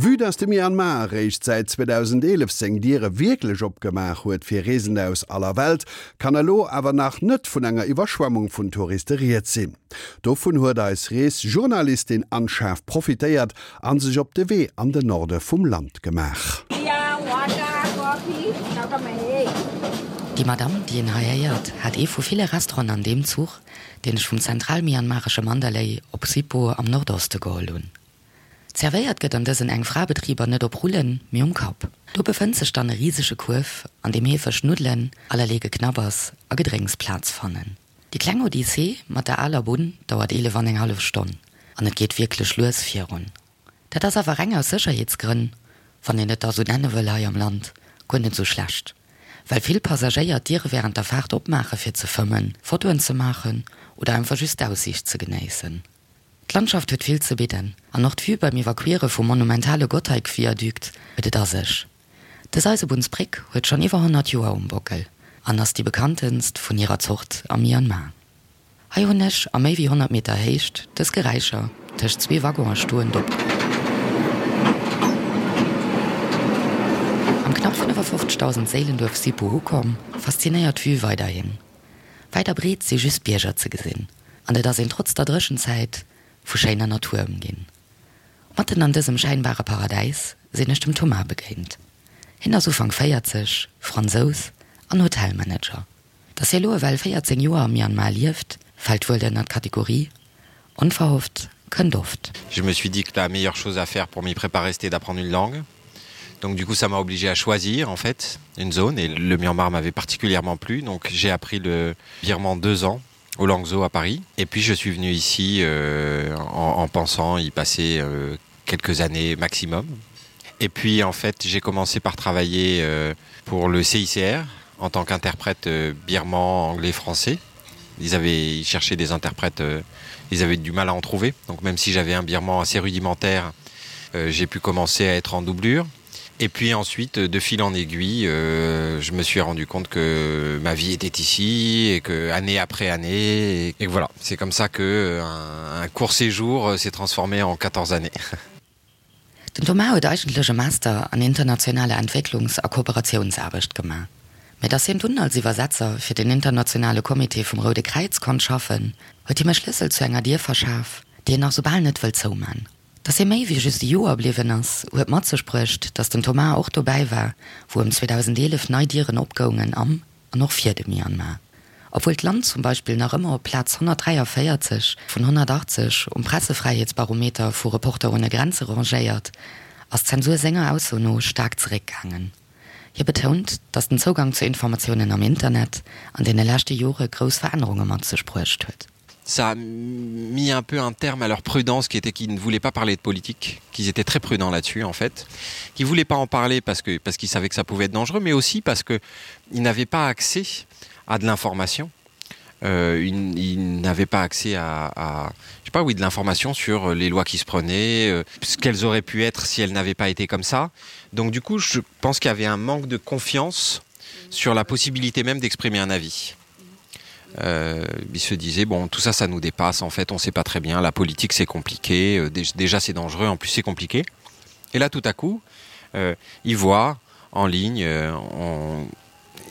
Vue dass de Myanmar eréischt säit 2011 seng Diere wierklech opgemaach huet fir Reesende aus aller Welt, kann elo awer nach net vun enger Iwwerschwemmung vun Touriste rieds sinn. Dovun huet eis Reesjournalistin Anne Schaaf profitéiert a sech op de Wee an den Norde vum Land gemaach. Déi Madamm, déi een hei héiert, hat ee vu ville Restauranten an deem Zuch, deen ech vum zentral-myanmaresche Mandalay op Hsipaw am Nordoste geholl hunn. Zerwéiert gëtt an dësen Eng-Fra-Betriber net op Rullen, mee um Kapp. Do befënnt sech dann e risege Kuerf, an deem heefeg Nuddelen, allerlee Geknabbers a Gedrénks Plaz fannen. Déi kleng Odyssee mat der aler Bunn dauert 11 an eng hallef Stonn an et geet wierklech lues virun. Dat ass awer reng aus Sécherheetsgrënn, wann een et da sou nenne wëll hei am Land, guer net sou schlecht, well vill Passagéier d'Diere wärend der Faart opmaache fir ze fëmmen, Fotoen ze maachen oder einfach just d'Aussiicht ze genéissen. D'Landschaft huet vill ze bidden an och d'Vue beim Iwwerquiere vum monumentale Gotthardviadukt huet et a sech. Dës Eisebunnsbréck huet schonn iwwer 100 Joer um Bockel an ass déi bekanntenst vun hirer Zort am Myanmar. Hei hunn ech a méi wéi 100 Meter Héicht dës Geräischer tëscht zwee Waggone stoend op. Am knapp 55.000 Séilenduerf Sipu ukomm, faszinéiert d'Vue weiderhin. Wäit a breet si just Bierger ze gesinn an et ass een trotz der Dréchenzäit vu schéiner Natur ëmginn. Matten an dësem schäinbare Paradäis sinn ech dem Thomas begéint. Hien ass Ufank 40, Fransous an Hotelmanager. Dass hie lo ewell 14 Joer am Myanmar lieft, fält wuel ënner d'Kategorie onverhofft kënnt oft. Je me suis dit que la meilleure chose à faire pour m'y préparer c'était d'apprendre une langue. Donc du coup ça m'a obligé à choisir en fait une zone et le Myanmar m'avait particulièrement plu donc j'ai appris le birman deux ans au Langzhou à Paris et puis je suis venu ici euh, en, en pensant y passer euh, quelques années maximum. Et puis en fait j'ai commencé par travailler euh, pour le CICR en tant qu'interprète euh, birman anglais français. Ils avaient cherché des interprètes, euh, ils avaient du mal à en trouver. Donc même si j'avais un birman assez rudimentaire, euh, j'ai pu commencer à être en doublure. Et puis ensuite, de fil en aiguille, euh, je me suis rendu compte que ma vie était ici et que année après année et, et voilà, c'est comme ça que euh, un, un court séjour euh, s'est transformé en 14 années. Den Thomas huet eigentlech e Master an internationaler Entwécklungs a Kooperatiounsaarbecht gemaach. Mä dass hien dunn als Iwwersetzer fir den internationale Comité vum Roude Kräiz konnt schaffen, huet him e Schlëssel zu enger Dier verschaf, déi en nach soubal net wëll zouman. Dass hie méi wéi just e Joer bliwwen ass, huet mat sech bruecht, dass den Thomas och dobäi war, wou ëm 2011 nei Dieren opgoungen am an och fir de Myanmar. Obwuel d'Land zum Beispill nach ëmmer op Plaz 143 vun 180 um Pressefräiheetsbarometer vu Reporter ohne Grenze rangéiert, ass d'Zensur senger Ausso no staark zeréckgaangen. Hie betount, datt den Zougang zu Informatiounen am Internet an deene leschte Jore grouss Verännerunge mat sech bruecht huet. Ça a mis un peu un terme à leur prudence qui était qu'ils ne voulaient pas parler de politique, qu'ils étaient très prudents là-dessus en fait, qu'ils voulaient pas en parler parce que parce qu'ils savaient que ça pouvait être dangereux, mais aussi parce que ils n'avaient pas accès à de l'information. Euh, ils, ils n'avaient pas accès à, à je sais pas oui de l'information sur les lois qui se prenaient, euh, ce qu'elles auraient pu être si elles n'avaient pas été comme ça. Donc du coup je pense qu'il y avait un manque de confiance sur la possibilité même d'exprimer un avis. Euh, il se disait bon tout ça ça nous dépasse en fait on sait pas très bien la politique c'est compliqué euh, déjà c'est dangereux en plus c'est compliqué et là tout à coup euh, il voit en ligne euh, on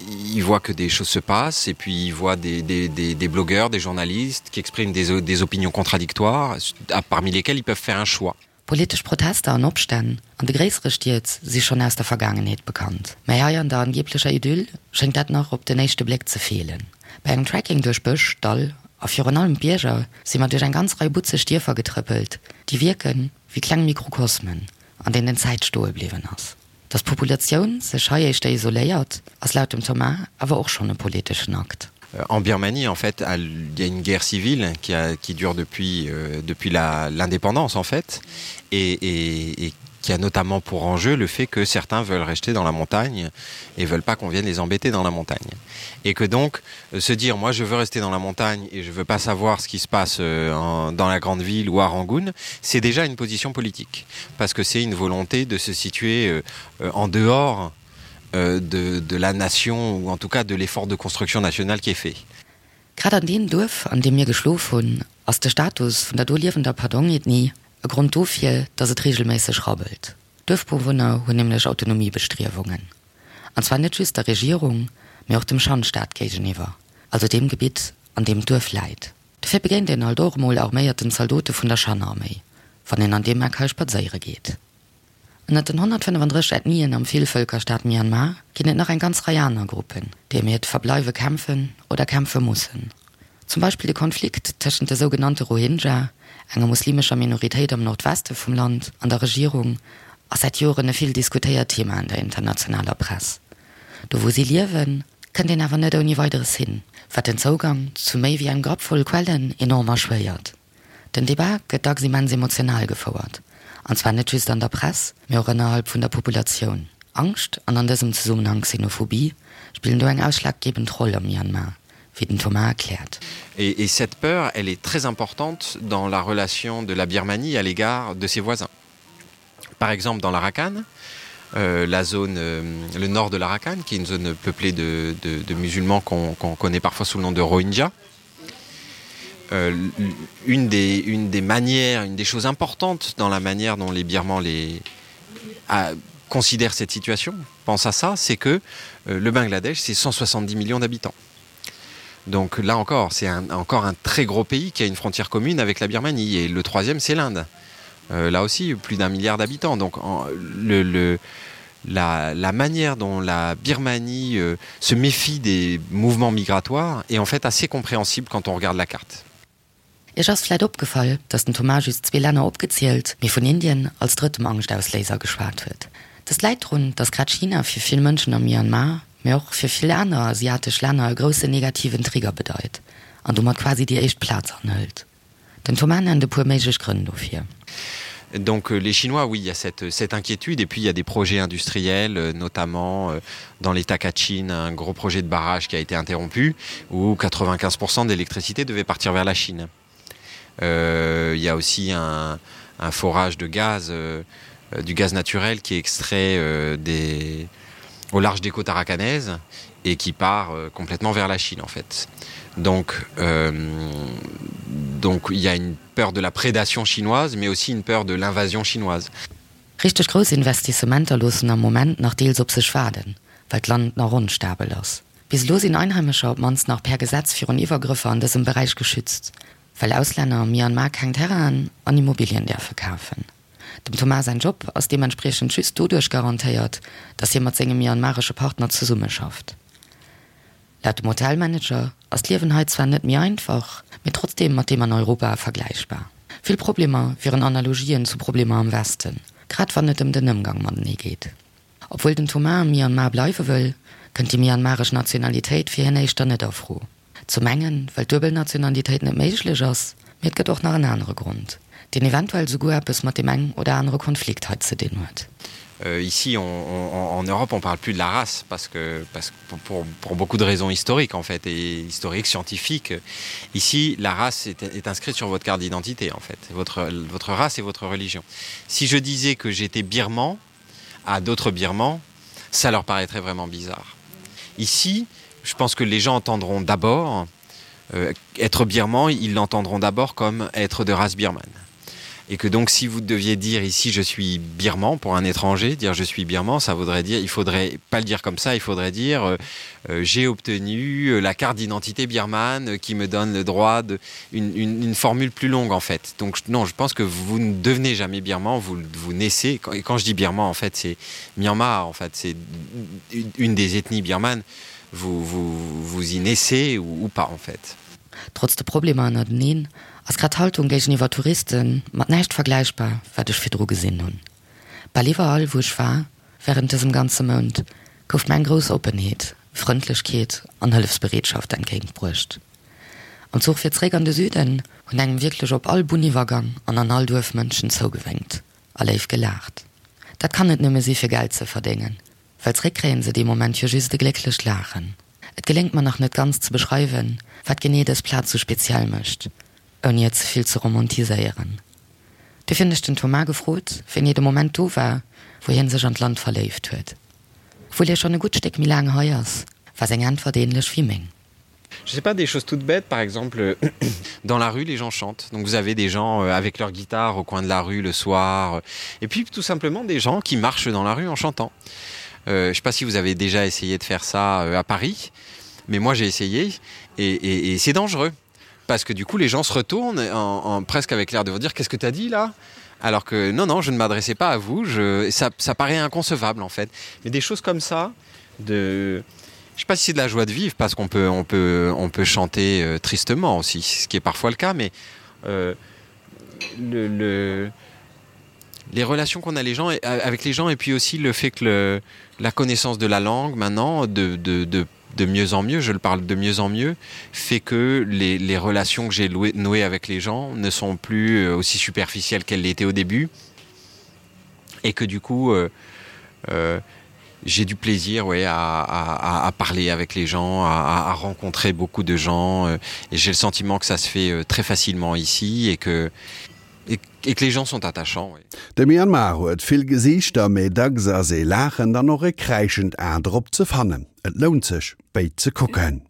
il voit que des choses se passent et puis il voit des, des, des, des blogueurs des journalistes qui expriment des, des opinions contradictoires à, parmi lesquelles ils peuvent faire un choix Politesch Protester an Opstänn an de gréissere Stied si schonn aus der Vergaangenheet bekannt, mä hei an der angeeblecher Idyll schéngt dat nach op den éischte Bléck ze feelen. Bei engem Trekking duerch Bësch, Dall a virun allem Bierger si mer duerch eng ganz Rei butzeg Dierfer getrëppelt, déi wierken wéi kleng Mikrokosmen, an deenen d'Zäit stoe bliwwen ass. Datt d'Populatioun sech hei éischter isoléiert, ass laut dem Thomas awer och schonn e politeschen Akt. En Birmanie en fait il y a une guerre civile qui a qui dure depuis euh, depuis l'indépendance en fait et, et, et qui a notamment pour enjeu le fait que certains veulent rester dans la montagne et veulent pas qu'on vienne les embêter dans la montagne et que donc euh, se dire moi je veux rester dans la montagne et je veux pas savoir ce qui se passe euh, en, dans la grande ville ou à Rangoon c'est déjà une position politique parce que c'est une volonté de se situer euh, euh, en dehors euh, de, de la nation ou en tout cas de l'effort de construction nationale qui est fait. Grad an deem Duerf, an deem mir geschlof hunn, ass de Status vun der do liewender Padong-Ethnie e Grond dofir, dass et reegelméisseg rabbelt. D'Duerfbewunner hunn nämlech Autonomiebestriewungen. An zwar net just der Regierung, mee och dem Shan-Staat géigeniwwer, also deem Gebitt, an deem d'Duerf läit. Dofir begéint een alt och emol arméierten Zaldote vun der Shan-Arméi, wann een an deem Eck hei spadséiere geet. Ënnert den 135 Ethnien am Villvëlkerstaat Myanmar ginn et nach eng ganz Rei aner Gruppen, déi ëm hiert Verbleiwe kämpfen oder kämpfe mussen. Zum Beispill de Konflikt tëschent de sougenannte Rohingya, enger muslimescher Minoritéit am Nordweste vum Land, an der Regierung ass säit Joren e vill diskutéiert Thema an der internationaler Press. Do wou si liewen, kënnt een awer net ouni Weideres hin, wat den Zougang zu méi wéi engem Grapp voll Quellen enorm erschwéiert. Den Debat gëtt dacks immens emotional gefouert, an zwar net just an der Press, mee och ënnerhalb vun der Populatioun. Angscht, an an dësem Zesummenhang Xenophobie, spillen do eng ausschlaggebend Roll am Myanmar, wéi den Thomas erkläert. Et cette peur, elle est très importante dans la relation de la Birmanie à l'égard de ses voisins. Par exemple dans l'Arakan, euh, la zone euh, le nord de l'Arakan, qui est une zone peuplée de, de, de musulmans qu'on qu connaît parfois sous le nom de Rohingya. Euh, une, des, une des manières, une des choses importantes dans la manière dont les Birmans les, à, considèrent cette situation, pense à ça, c'est que euh, le Bangladesh, c'est 170 millions d'habitants. Donc là encore, c'est encore un très gros pays qui a une frontière commune avec la Birmanie et le troisième c'est l'Inde. Euh, là aussi plus d'un milliard d'habitants donc en, le, le, la, la manière dont la Birmanie euh, se méfie des mouvements migratoires est en fait assez compréhensible quand on regarde la carte. Iech ass vläit opgefall, dass den Thomas just zwee Länner opgezielt, mee vun Indien als drëttem Angschtausléiser geschwat huet. Dëst läit drun, dass grad China fir vill Mënschen am Myanmar, mee och fir vill aner asiatesch Länner e groussen negativen Trigger bedeit an domat quasi déi éischt Plaz anhëlt. Den Thomas nennt e puer méiglech Grënn dofir. Donc euh, les Chinois, oui, il y a cette, cette inquiétude et puis il y a des projets industriels, euh, notamment euh, dans l'État Kachin, un gros projet de barrage qui a été interrompu où 95% d'électricité devait partir vers la Chine. Euh, il y a aussi un, un forage de gaz, euh, du gaz naturel qui est extrait euh, des, au large des côtes arakanaises et qui part euh, complètement vers la Chine en fait. Donc, euh, donc il y a une peur de la prédation chinoise, mais aussi une peur de l'invasion chinoise. Richteg grouss Investissementer loossen am Moment nach deels op sech waarden, well d'Land nach onstabel ass. Bis elo sinn Einheimescher op d'mannst nach per Gesetz virun Iwwergrëffer an dësem Beräich geschützt, well Auslänner am Myanmar keng Terrainen an Immobilien däerfe kafen. Dem Thomas säin Job ass deementspriechend just doduerch garantéiert, datt hie mat sengem myanmaresche Partner zesummeschafft. Laut dem Hotelmanager ass d'Liewen hei zwar net méi einfach, mee trotzdeem mat deem an Europa vergläichbar. Vill Problemer wieren Analogien zu Problemer am Westen, grad wann et ëm den Ëmgang matenee geet. Obwuel den Thomas am Myanmar bleiwe wëll, kënnt déi myanmaresch Nationalitéit fir hien éischter net a Fro. Zum engen, well d'Duebelnationalitéit net méiglech ass, mee et gëtt och nach en anere Grond, deen eventuell souguer eppes mat deem eng oder anere Konflikt hei ze dinn huet. Ici on, on, en Europe on parle plus de la race parce que parce pour, pour, pour beaucoup de raisons historiques en fait et historiques scientifiques ici la race est, est inscrite sur votre carte d'identité en fait votre votre race et votre religion si je disais que j'étais birman à d'autres birmans ça leur paraîtrait vraiment bizarre ici je pense que les gens entendront d'abord euh, être birman ils l'entendront d'abord comme être de race birmane et que donc si vous deviez dire ici je suis birman pour un étranger dire je suis birman ça voudrait dire il faudrait pas le dire comme ça il faudrait dire euh, euh, j'ai obtenu euh, la carte d'identité birmane qui me donne le droit de une, une, une formule plus longue en fait donc non je pense que vous ne devenez jamais birman vous vous naissez quand, et quand je dis birman en fait c'est myanmar en fait c'est une des ethnies birmanes vous vous vous y naissez ou, ou pas en fait Trotz de Problemer ënnerteneen ass grad d'Haltung géigeniwwer Touriste mat näischt vergläichbar, wat ech virdru gesinn hunn. Bal iwwerall, wou ech war wärend dësem ganze Mount, gouf mir eng grouss Oppenheet, Frëndlechkeet an Hëllefsbereetschaft entgéintbruecht. Am Zuch fir zréck an de Süden hunn engem wierklech op all Bunniwwergang an an all Duerf Mënschen zougewénkt a léif gelaacht. Dat kann net nëmme si fir Geld ze verdéngen, well zréck kréien se dee Moment jo just e glécklecht Laachen. Et geléngt mer nach net ganz ze beschreiwen, wat genee dës Plaz sou speziell mécht, ouni et ze vill ze romantiséieren. Duerfir hunn ech den Thomas gefrot, wéini de Moment do war, wou hien sech an d'Land verléift huet. Obwuel hie schonn e gutt Stéck méi laang hei ass, war seng Äntwert ähnlech wéi meng. Je sais pas des choses toutes bêtes par exemple dans la rue les gens chantent donc vous avez des gens euh, avec leur guitare au coin de la rue le soir et puis tout simplement des gens qui marchent dans la rue en chantant. Euh, je sais pas si vous avez déjà essayé de faire ça euh, à Paris mais moi j'ai essayé et, et, et c'est dangereux parce que du coup les gens se retournent en, en presque avec l'air de vous dire qu'est-ce que tu as dit là alors que non non je ne m'adressais pas à vous je ça, ça paraît inconcevable en fait mais des choses comme ça de je sais pas si c'est de la joie de vivre parce qu'on peut on peut on peut chanter euh, tristement aussi ce qui est parfois le cas mais euh, le, le les relations qu'on a les gens et, avec les gens et puis aussi le fait que le la connaissance de la langue maintenant de de, de de mieux en mieux je le parle de mieux en mieux fait que les, les relations que j'ai nouées avec les gens ne sont plus euh, aussi superficielles qu'elles l'étaient au début et que du coup euh, euh, j'ai du plaisir ouais, à, à, à parler avec les gens, à, à rencontrer beaucoup de gens euh, et j'ai le sentiment que ça se fait euh, très facilement ici et que et, et que les gens sont attachants. Ouais. De Myanmar huet vill Gesiichter, mee dacks ass ee laachend an och e kräischend A drop ze fannen. Et lount sech, béid ze kucken.